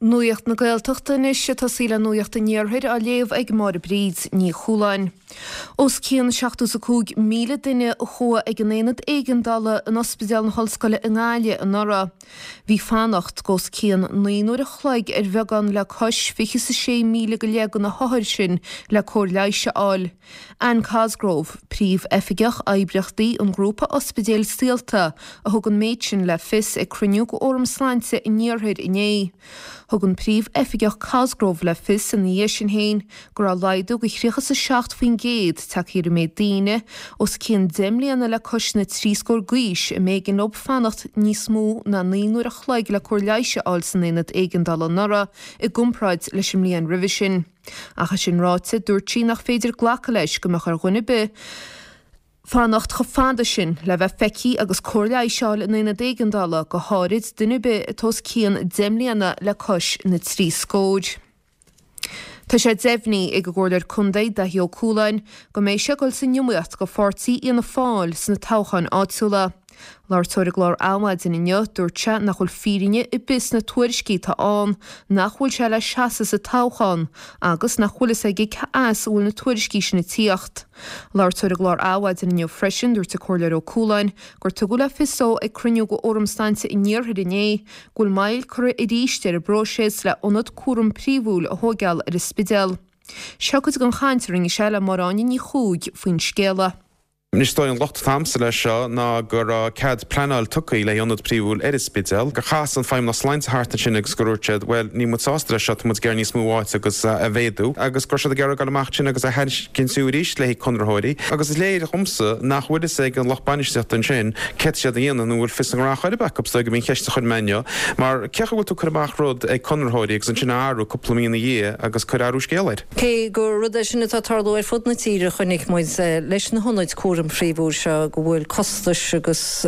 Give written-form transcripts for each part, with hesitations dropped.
Nuacht na Gaeltachta anois ag tosaí le Nuacht an Iarthair á léamh ag Máire Bríd Ní Chualáin. Os cionn 75,000 duine a chuaigh ag an aonad éigeandála in Ospidéal na hOllscoile i nGaillimh anuraidh. Bhí fanacht os cionn 9 n-uair a chloig ar bheagán le cois 26,000 go leith de na hothair sin le cóir leighis a fháil. Anne Cosgrove, Príomh-Oifigeach Oibríochtaí an Ghrúpa Ospidéil Saolta, a thug an méid sin le fios ag cruinniú de Fhóram Sláinte an Iarthair inné. Thug an Príomh-Oifigeach Cosgrove le fios ina dhiaidh sin féin go raibh laghdú de 37% tagtha ar an méid daoine os cionn 10 mbliana le cois na dtrí scór d'aois a mb'éigean leo fanacht níos mó ná 9 n-uair a chloig le cóir leighis a fháil san aonad éigeandála anuraidh i gcomparáid leis an mbliain roimhe sin. Ach é sin ráite, dúirt sí nach féidir glacadh leis go mbeadh ar dhuine ar bith fanacht chomh fada sin le bheith feicthe agus cóir leighis a fháil in aonad éigeandála, go háirid duine ar bith atá os cionn 10 mbliana le cois na dtrí scór. Tá sé deimhnithe ag an gComhairleoir Contae, Daithí Ó Cualáin, go mbeidh sé ag dul san iomaíocht do pháirtí Fhianna Fáil sna toghcháin áitiúla. Labhairt dó ar an gclár Adhmhaidin inniu, dúirt sé nach bhfuil fírinne ar bith sna tuairiscí atá ann nach bhfuil sé le seasamh sa toghchán agus nach bhfuil fhios aige cé as a bhfuil na tuairiscí sin ag tíocht. Labhairt dó ar an gclár Adhmhaidin inniu freisin, dúirt an Comhairleoir Ó Cualáin gur tugadh le fios dó ag cruinniú de Fhóram Sláinte an Iarthair inné go bhfuil moill curtha arís ar an bpróiseas le ionad cúram príomhúil a thóigeáil ar an Spidéal. Seo cuid den chaint a rinne sé le Máire Áine Ní Chuaig faoin scéala. Anois is dóigh an locht atá a'msa leis seo ná go raibh cead pleanáil tugtha le hionad príomhúil ar an Spidéal, gur chas an Feidhmeannas Sláinte thart ansin agus gur dhúirt siad bhuel níl muid sásta leis seo, tá muid ag iarraidh níos mó áite agus a mhéadú agus go raibh siad ag iarraidh dul amach ansin agus a thairiscint arís le haghaidh conraitheoirí agus is léir dhomsa nach bhfuil fhios ag an lucht bainistíochta ansin céard tá siad a dhéanamh nó an bhfuil fios a ngnó chor ar bith acu, is dóigh gurb í an cheist a chuir mé inniu mar cén chaoi a bhfuil tú ag cur amach rud ag conraitheoirí agus ansin a athrú cúpla mí ina dhiaidh agus cur athrú scéal air. Cé gur rud é sin atá ag tarlú ar fud na tíre, chonaic muid leis na hionaid cúraim phríomhúil seo go bhfuil costais agus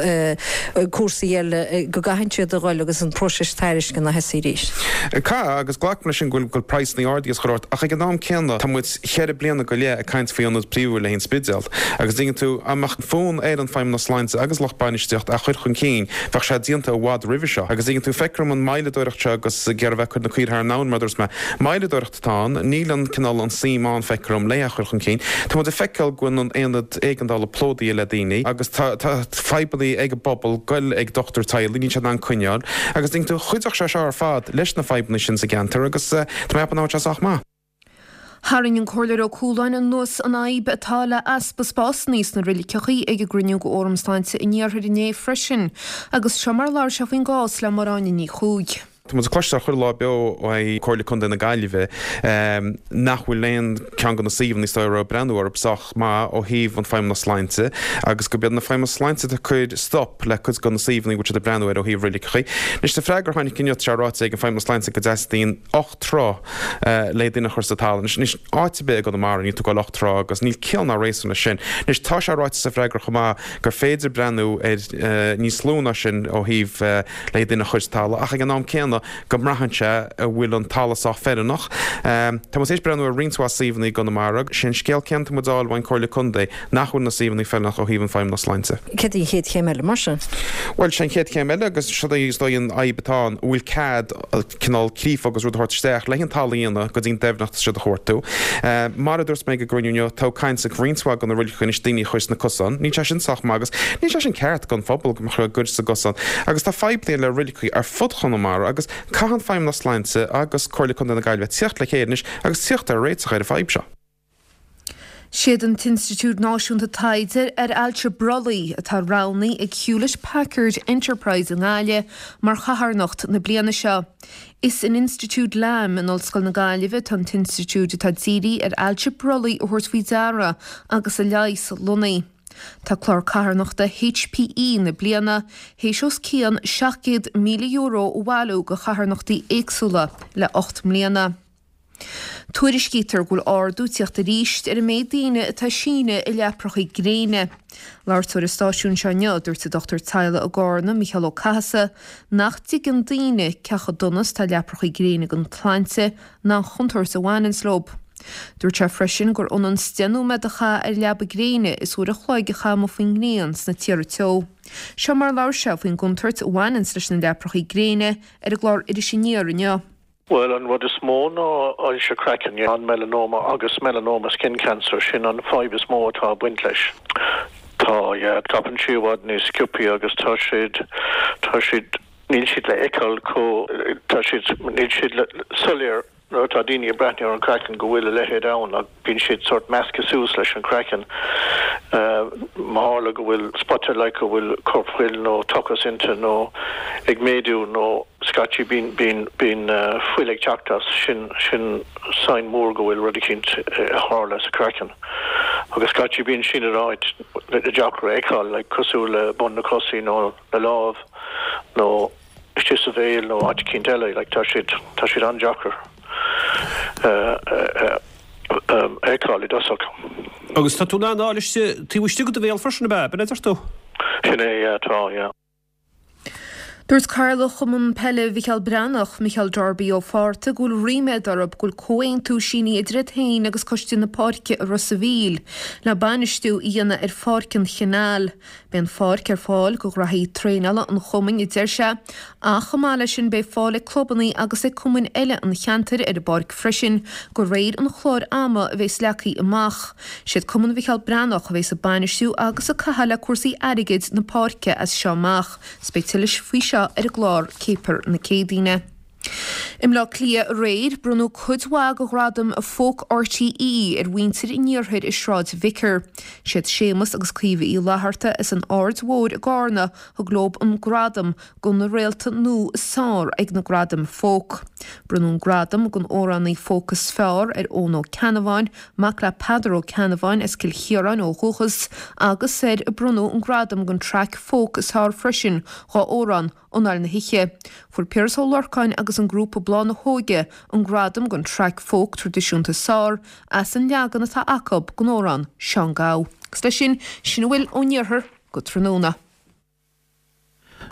cúrsaí eile go gcaitheann siad a dhul agus an próiseas tairisceana a thosaí arís. Caithfidh, agus glacaim leis sin go bhfuil praghsanna ardaithe is chuile shórt, ach ag an am céanna tá muid cheithre bliana go leith ag caint faoi ionad príomhúil le haghaidh an Spidéal agus dtuigeann tú, dá mbeadh fonn ar an Feidhmeannas Sláinte agus lucht bainistíocht é a chur chun cinn bheadh sé déanta i bhfad roimhe seo agus dtuigeann tú, feictear dom an moilleadóireacht seo agus ag iarraidh a bheith ag cur na caoire thar an abhainn mar a dúirt mé, moilleadóireacht. atá ann. Níl an cineál an suim ann, feictear dom, le é a chur chun cinn. Tá muid ag feiceáil go bhfuil an aonad éigeandála plódaithe le daoine agus tá tá fadhbanna ag an bpobal goil ag dochtúir teaghlaigh, níl siad in ann coinneáil. Agus dtuigeann tú, chuideodh sé seo ar fad leis na fadhbanna sin sa gceantar agus tá mé ag ceapadh nach bhfuil sé sách maith. Tharraing an Comhairleoir Ó Cualáin anuas an fhadhb atá le easpa spásanna sna roiliceachaí ag an gcruinniú de Fhóram Sláinte an Iarthair inné freisin agus seo mar a labhair sé faoin gcás le Máire Áine Ní Chuaig. Tá muid ag cloisteáil chuile lá beo ó Comhairle Contae na Gaillimhe nach bhfuil aon ceann de na suíomhanna is dóigh a raibh breathnú orthu sách maith ó thaobh an Feidhmeannas Sláinte agus gurb iad na Feidhmeannas Sláinte atá ag cur stop le cuid de na suíomhanna a bhfuil siad ag breathnú air ó thaobh roiliceachaí. Anois sa freagra a tháinig inniu tá sé ráite ag an Feidhmeannas Sláinte go dteastaíonn 8 troigh le duine a chur sa talamh. Anois áit ar bith i gConamara níl tú ag goil 8 troigh agus níl ciall ná réasún leis sin. Anois tá sé ráite sa freagra chomh maith gur féidir breathnú ar níos lú ná sin ó thaobh le duine a chur sa talamh, ach ag an am céanna go mbraitheann sé an bhfuil an talamh sách feiliúnach. Tá muid tar éis breathnú ar roinnt mhaith suíomhanna i gConamara. Sé an scéal céanna atá muid a fháil ón Comhairle Contae, nach bhfuil na suíomhanna feiliúnach ó thaobh an Feidhmeannas Sláinte. Céard í an chéad chéim eile mar sin? Bhuel, sé an chéad chéim eile, agus seo é is dóigh an fhadhb atá ann, an bhfuil cead cineál creafadh agus rud a thabhairt isteach le an talamh a dhéanamh go dtí an doimhneacht is siad a chuartú. Mar a dúirt mé ag an gcruinniú inniu, tá caint ag roinnt mhaith de na roiligeacha anois daoine a chur sna cosáin. Níl sé sin sách maith agus níl sé sin ceart don phobal go mbeadh a gcur sa gcosán. Agus tá fadhbanna le roiligeacha ar fud Chonamara agus caithfidh an Feidhmeannas Sláinte agus Comhairle Contae na Gaillimhe tíocht le chéile anois agus tíocht ar réiteach ar an fadhb seo. Siad an tInstitiúid Náisiúnta Taighde ar Ailse Brollaigh atá roghnaithe ag Hewlett Packard Enterprise i nGaillimh mar chatharnacht na bliana seo. Is in Institiúid Lam in Ollscoil na Gaillimhe atá an t-institiúid atá dírithe ar ailse brollaigh a thabhairt faoi deara agus a leigheas lonnaithe. Tá clár carthanachta HPE na bliana théis os cionn €700,000 a bhailiú do charthanachtaí éagsúla le 8 mbliana. Tuairiscítear go bhfuil ardú ag tíocht arís ar an méid daoine atá ag síneadh i leaprachaí gréine. Labhairt dó ar an stáisiún seo inniu, dúirt an dochtúir teaghlaigh i gCarna, Mícheál Ó Cathasaigh, nach dtuigeann daoine cé chomh dona is atá leaprachaí gréine don tsláinte ná an chontúirt a bhaineanns leo. Dúirt sé freisin gur ionann 's 10 nóiméad a chaitheamh ar leaba gréine is uair a chloig a chaitheamh amuigh faoin ngrian sna tíortha teo. Seo mar a labhair sé faoin gcontúirt a bhaineanns leis na leaprachaí gréine ar an gclár Iris Aniar inniu. Bhuel, an rud is mó ná ailse craicinn, an melanoma agus melanoma skin cancer, sin an fadhb is mó atá ag baint leis. Tá, yeah, scaipeann sí i bhfad níos sciobthaí agus tá siad, tá siad, níl siad le feiceáil chomh, tá siad, níl siad soiléir nuair atá daoine ag breathnú ar an craiceann go bhfuil a leithéid ann ach bíonn siad sórt measctha suas leis an craiceann. Má tharla go bhfuil spota like go bhfuil corpfhuil nó tochas inti nó ag méadú nó scaití bíonn bíonn bíonn fuil ag teacht as, sin sin sign mór go bhfuil rud eicínt ag tarlú sa craiceann. Agus scaití bíonn sin in áit deacair a fheiceáil like cosúil le bun na cosaí nó na lámh nó istigh sa bhéal nó áit eicínt eile, like tá siad, tá siad an-deacair a fheiceáil i dtosach. Agus tá tú in ann a fháil istigh, taobh istigh de do bhéal freisin, ab ea? B'in a deir tú? Sin é, yeah, tá, yeah. Dúirt Cathaoirleach Chumann Peile Mhicheál Breathnach, Micheál Darby Ó Fátharta, go bhfuil ríméad orthu go bhfuil comhaontú sínithe idir iad féin agus Coiste na Páirce i Ros a' Mhíl le bainistiú a dhéanamh ar Pháirc an Chanáil. Beidh an pháirc ar fáil do ghraithí traenála an chumainn, a deir sé, ach chomh maith leis sin beidh fáil ag clubanna agus ag cumainn eile an cheantair ar an bpáirc freisin de réir an chláir ama a bheas leagtha amach. Siad Cumann Mhicheál Breathnach a bheas ag bainistiú agus ag caitheamh le cúrsaí airgid na páirce as seo amach. 'S beidh tuilleadh faoi seo ar an gclár Céipear na Céadaoine. I mBleá Cliath aréir, bronnadh cuid mhaith de ghradaim Folk RTÉ ar mhuintir an iarthair i Sráid Vicar. Siad Séamus agus Caoimhe Uí Fhlatharta as an Aird Mhóir i gCarna thug leo an gradam do na réalta nua is fearr ag na Gradaim Folk. Bronnadh an gradam don amhránaí folk is fearr ar Eoin Ó Ceannabháin, mac le Peadar Ó Ceannabháin as Cill Chiaráin ó dhúchas, agus ar bronnadh an gradam don traic folk is fearr freisin dá amhrán Anáil na hOíche. Fuair Piaras Ó Lorcáin agus an grúpa Bláth na hÓige an gradam don traic folk traidisiúnta is fearr as an leagan atá acu den amhrán Seán Gabha. Agus leis sin, sin a bhfuil ón iarthar go tráthnóna.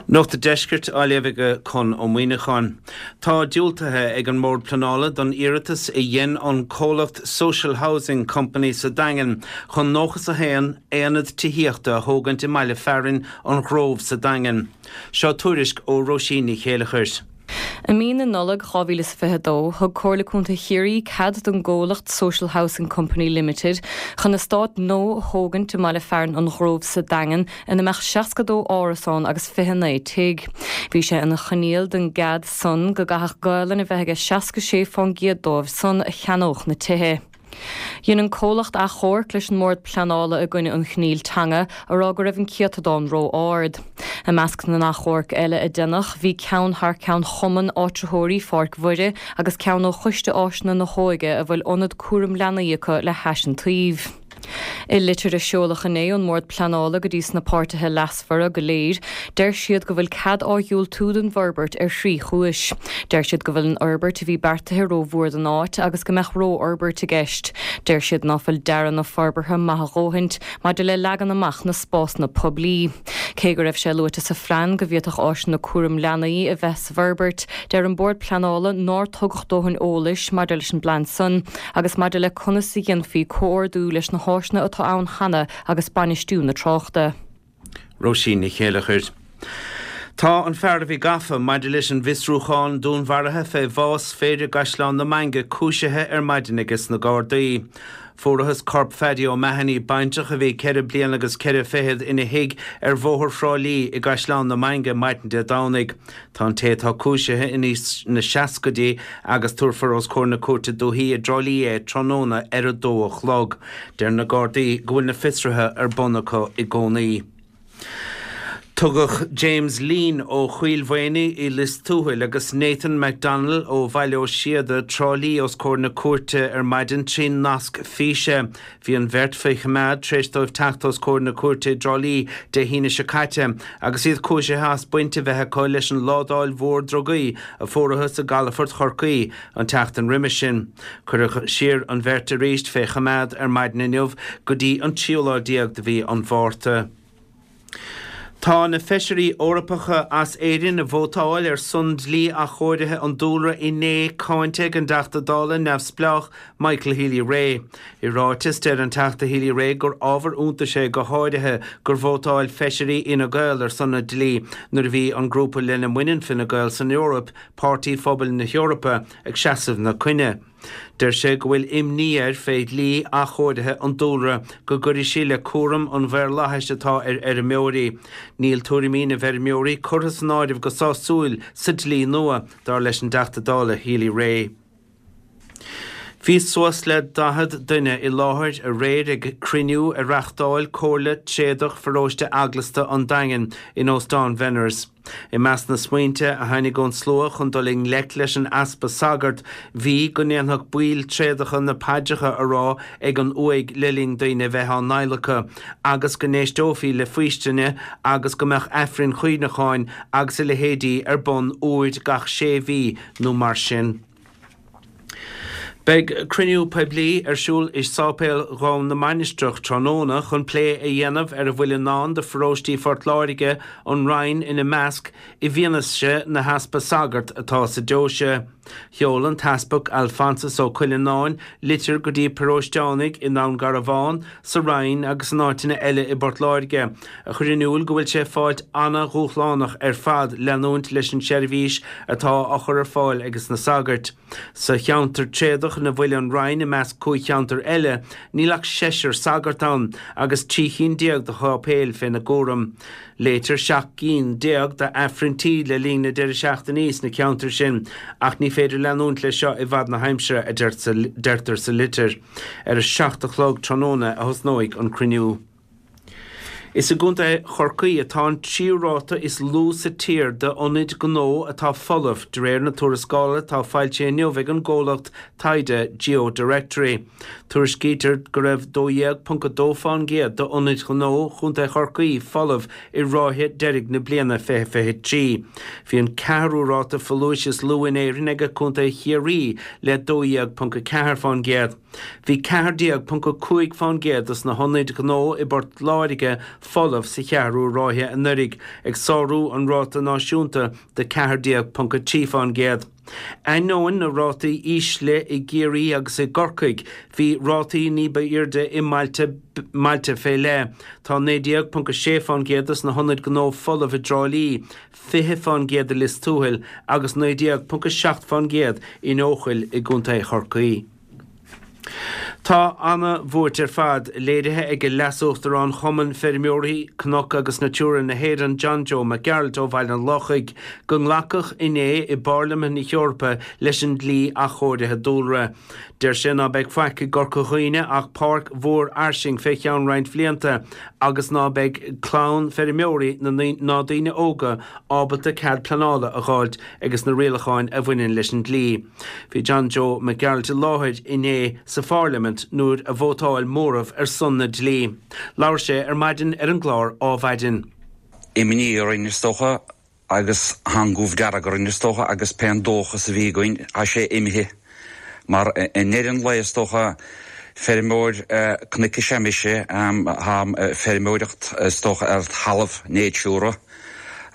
Nuacht an Deiscirt á léamh ag Conn Ó Muíneacháin. Tá diúltaithe ag an mBord Pleanála don iarratas a dhein an comhlacht Social Housing Company sa Daingean chun 91 aonad tithíochta a thógaint i mbaile fearainn An Ghrove sa Daingean. Seo tuairisc ó Róisín Ní Chéileachair. I mí na Nollag 2022, thug Comhairle Contae Chiarraí cead don gcomhlacht Social Housing Company Limited chun eastát nua a thógaint i mbaile fearainn An Ghrove sa Daingean ina mbeadh 62 árasán agus 29 tigh. Bhí sé ina choinníoll don gcead san go gcaithfeadh Gaolainn a bheith aige 66 fán gcéad dóibh san a cheannódh na tithe. Dhein an comhlacht achomharc leis an mBord Pleanála i gcoinne an choinníll teanga, a rá go raibh an céatadán ró-ard. I measc na n-achomharc eile a deineadh, bhí ceann thar ceann Chumann Áitritheoirí Pháirc Mhuire agus ceann ó Choiste Áiseanna na hÓige a bhfuil ionad cúram leanaí acu le hais an tsuímh. I litir a seoladh inné ón mBord Pleanála go dtí sna páirtithe leasmhara go léir, deir siad go bhfuil cead á dhiúltú don bhforbairt ar thrí chúis. Deir siad go bhfuil an fhorbairt a bhí beartaithe rómhór don áit agus go mbeadh rófhorbairt i gceist. Deir siad ná fuil dearadh na forbartha maith a dhóthaint maidir le leagan amach na spásanna poiblí. Cé go raibh sé luaite sa phlean go bhféadfadh áiseanna cúram leanaí a bheith sa bhforbairt, deir an Bord Pleanála nár tugadh dóthain eolais maidir leis an bplean san agus maidir le conas a dhéanfaí comhordú leis na háiseanna atá ann cheana agus bainistiú na tráchta. Róisín Ní Chéileachair. Tá an fear a bhí gafa maidir leis an bhfiosrúchán dúnmharaithe fé bhás fir i gCaisleán na Mainge cúisithe ar maidin aige sna Gardaí. Fuarathas corp Phaddy O'Mahony, baintreach a bhí ceithre bliana agus ceithre fichead, ina thigh ar Bhóthar Thrá Lí i gCaisleán na Mainge maidin Dé Domhnaigh. Tá an té atá cúisithe in aois na seascaidí agus tabharfar os comhair na Cúirte Dúichí i dTrá Lí é tráthnóna ar a dó a chlog. Deir na Gardaí go bhfuil na fiosruithe ar bun acu i gcónaí. Tugadh James Leen ó Choill Mhaonaigh i Lios Tuathail agus Nathan McDonnell ó Bhaile Ó Síoda, Trá Lí os comhair na cúirte ar maidin trí nasc físe. Bhí an bheirt faoi choimeád tar éis dóibh teacht os comhair na cúirte i dTrá Lí Dé hAoine seo caite agus iad cúisithe as baint a bheith acu leis an ládáil mhór drugaí a fuarathas i gcalafort Chorcaí an tseachtain roimis sin. Cuireadh siar an bheirt arís fé choimeád ar maidin inniu go dtí an tríú lá déag de mhí an Mhárta. Tá na Feisirí Eorpacha as Éirinn a vótáil ar son dlí athchóirithe an dúlra inné cáinte ag an dTeachta Dála neamhspleách Michael Healy-Rae. I ráiteas, deir an Teachta Healy-Rae gur ábhar iontais é go háirithe gur vótáil Feisirí Fhine Gael ar son an dlí nuair a bhí an grúpa lena mbaineann Fine Gael san Eoraip, Páirtí Phobail na hEorpa, ag seasamh ina coinne. Deir sé go bhfuil imní air fé dhlí athchóirithe an dúlra go gcuirfidh sí le cúram an mhaorlathais atá ar fheirmeoirí. Níl tuairimí na bhfeirmeoirí curtha san áireamh go sásúil sa dlí nua, dar leis an dTeachta Dála Healy-Rae. Bhí suas le 40 duine i láthair aréir ag cruinniú a reachtáil Comhairle Tréadach Pharóiste Eaglasta an Daingin in Óstán Bhenners. I measc na smaointe a tháinig ón slua chun dul i ngleic leis an easpa sagart bhí go ndéanfadh baill tréadacha na paidreacha a rá ag an uaigh le linn daoine a bheith á n-adhlacadh agus go n-éisteofaí le faoistine agus go mbeadh aifrinn chuimhneacháin agus a leithéidí ar bun uair gach sé mhí nó mar sin. Beidh cruinniú poiblí ar siúl i Sáipéal Dhún na Mainistreach tráthnóna chun plé a dhéanamh ar a bhfuil i ndán do pharóistí Phort Láirge, an Rinn ina measc, i bhfianaise na heaspa sagart atá sa deoise. Sheol an tEaspag Alphonsus Ó Cuileanáin litir go dtí paróisteánaigh i nDún Garbhán, sa Rinn agus in áiteanna eile i bPort Láirge, a chur in iúl go bhfuil sé ag fáilt ana-dhúshlánach ar fad leanúint leis an seirbhís atá á chur ar fáil ages na sagairt. Sa cheantar tréadach ina bhfuil an Rinn i measc 5 cheantar eile, níl ach seisear sagart ann agus 13 chinn de sháipéil féna gcúram. Léitear 17 gcinn d'Aifrinntí le linn na deireadh seachtainí sna ceantair sin ach ní féidir leanúint leis seo i bhfad na haimsire, a deirtear sa litir. Ar a 7 a chlog tráthnóna a thosnóidh an cruinniú. Is i gContae Chorcaí atá an tríú ráta is lú sa tír d'ionaid gnó atá folamh, de réir na tuarascála atá foilsithe inniu ag an gcomhlacht taighde GeoDirectory. Tuairiscítear go raibh 12.2% d'ionaid ghnó Chontae Chorcaí folamh i ráithe deiridh na bliana 2023. Bhí an ceathrú ráta folúis is lú in Éirinn ag Contae Chiarraí le 12.4%. Bhí 14.5% dos na hionaid ghnó i bPort Láirge folamh sa cheathrú ráithe anuraidh, ag sárú an ráta náisiúnta de 14.3%. Ainneoin na rátaí ísle i gCiarraí agus i gCorcaigh, bhí rátaí ní ba airde i mbailte mbailte fé leith. Tá 19.6% dos na hionaid gnó folamh i dTrá Lí, 20% i Lios Tuathail agus 19.7% in Eochaill i gContae Chorcaí. Tá ana-bhuairt ar fad léirithe ag Leas-Uachtarán Chumann Feirmeoirí Cnoc agus Natura na hÉireann John Joe Mac Gearailt ó Bhaile an Lochaigh go nglacadh inné i bPairlimint na hEorpa leis an dlí athchóirithe dúlra. Deir sé ná beidh faic i gCorca Dhuibhne ach páirc mhór fhairsing fé cheann roinnt bhlianta agus ná beidh clann feirmeoirí ná daoine óga ábalta cead pleanála a dh'fháilt ages na rialacháin a bhaineann leis an dlí. Bhí John Joe Mac Gearailt i láthair inné sa phairlimint nuair a vótáil móramh ar son na dlí. Labhair sé ar maidin ar an gclár Ádhmhaidin. Imní orainn is dócha agus tá an goimh dearg orainn is dócha agus pé an dóchas a bhí againn tá sé imithe mar i ndeireadh an lae is dócha feirmeoir cnoic is ea mise, táim ag feirmeoireacht is dócha ar thalamh Natura.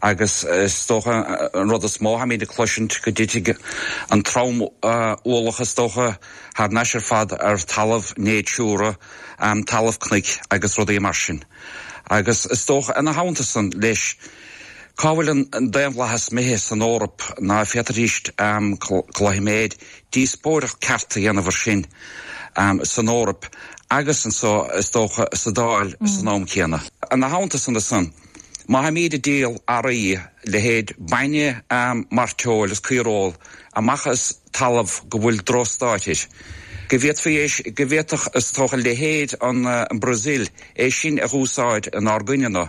Agus is dócha an rud is mó tháimid ag cloisint go dtitfidh an trom-ualach is dócha thar n-ais ar fad ar talamh Natura, talamh cnoic agus rudaí mar sin. Agus is dócha ina theannta san leis, cá bhfuil an daonlathas imithe san Eoraip ná féadfaidís cloisim díospóireacht ceart a dhéanamh ar sin san Eoraip agus anso is dócha sa Dáil san am céanna. Ina theannta san ansan. Má tháimíd ag díol earraí, leithéid bainne, mairteoil is caoireoil, amach as talamh go bhfuil drochstáid air, go bhféadfaí é, go bhféadfadh is dócha leithéid an Brazil é sin a dh'úsáid inár gcoinne-na.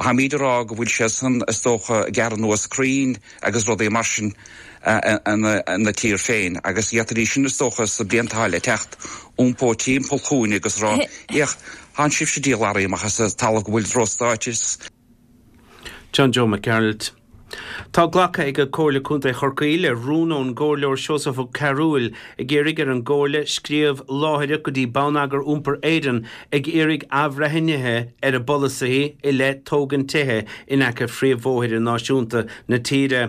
Tháimíd ag rá go bhfuil sé san is dócha ag gearradh anuas crainn agus rudaí mar sin ina tír féin agus d'fhéadfaidís sin is dócha sa blianta atá le teacht iompó timpeall chugainn agus rá, Fhéach, Tánn sibhse ag díol earraí amach as talamh go bhfuil drochstáid air. John Joe Mac Gearailt. Tá glactha ag Comhairle Contae Chorcaí le rún ón gComhairleoir Seosamh Ó Cearúil ag iarraidh ar an gComhairle scríobh láithreach go dtí Bonneagar Iompair Éireann ag iarraidh athbhreithnithe ar a bpolasaithe i leith tógaint tithe in aice phríomhbhóithre náisiúnta na tíre.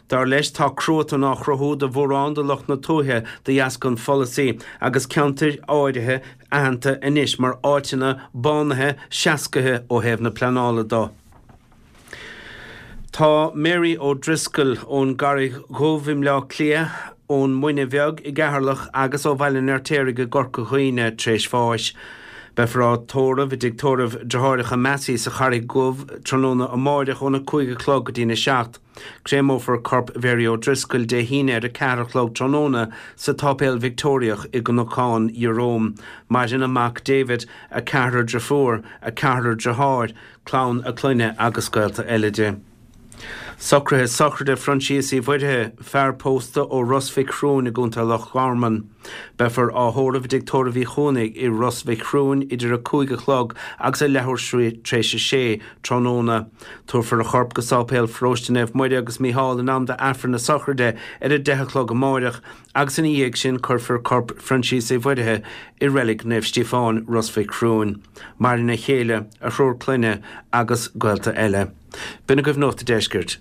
Dar leis tá cruatan á chruthú do mhórán de lucht na tuaithe de dheasca an pholasaí agus ceantair áirithe aitheanta anois mar áiteanna bánaithe seascaithe ó thaobh na pleanála do. Tá Mary O'Driscoll ón gCarraig Dhubh i mBleá Cliath, ón Muine Bheag i gCeatharlach agus ó Bhaile an Fheirtéaraigh i gCorca Dhuibhne tar éis bháis. Beifear á tórramh i dtigh tórraimh Deartháireacha Massey sa Charraig Dhubh tráthnóna amáireach óna 5 a chlog go dtína 7. Créamófar corp Mhary O'Driscoll Dé hAoine ar a 4 a chlog tráthnóna sa tSáipéal Victeoiriach i gCnocán Jerome. Maireann a mac David, a ceathrar driofúr, a ceathrar driotháir, clann a clainne agus gaolta eile di. Socruithe sochraide Phroinsias Uí Mhuirthigh, fear pósta ó Ros Mhic Thriúin i gContae Loch Garman. Beifear á thórramh i dTigh Tórraimh Uí Chuanaigh i Ros Mhic Thriúin idir 5 a chlog agus a leathuair tar éis a sé tráthnóna. Tabharfar a chorp go Sáipéal Pharóiste Naomh Muire agus Mícheál in am d'Aifreann na sochraide ar a 10 a chlog amáireach agus ina dhiaidh sin cuirfear corp Phroinsias Uí Mhuirthigh i Reilig Naomh Stíofáin, Ros Mhic Thriúin. Maireann a chéile, a thriúr clainne agus gaolta eile. B'in agaibh Nuacht a' Deiscirt.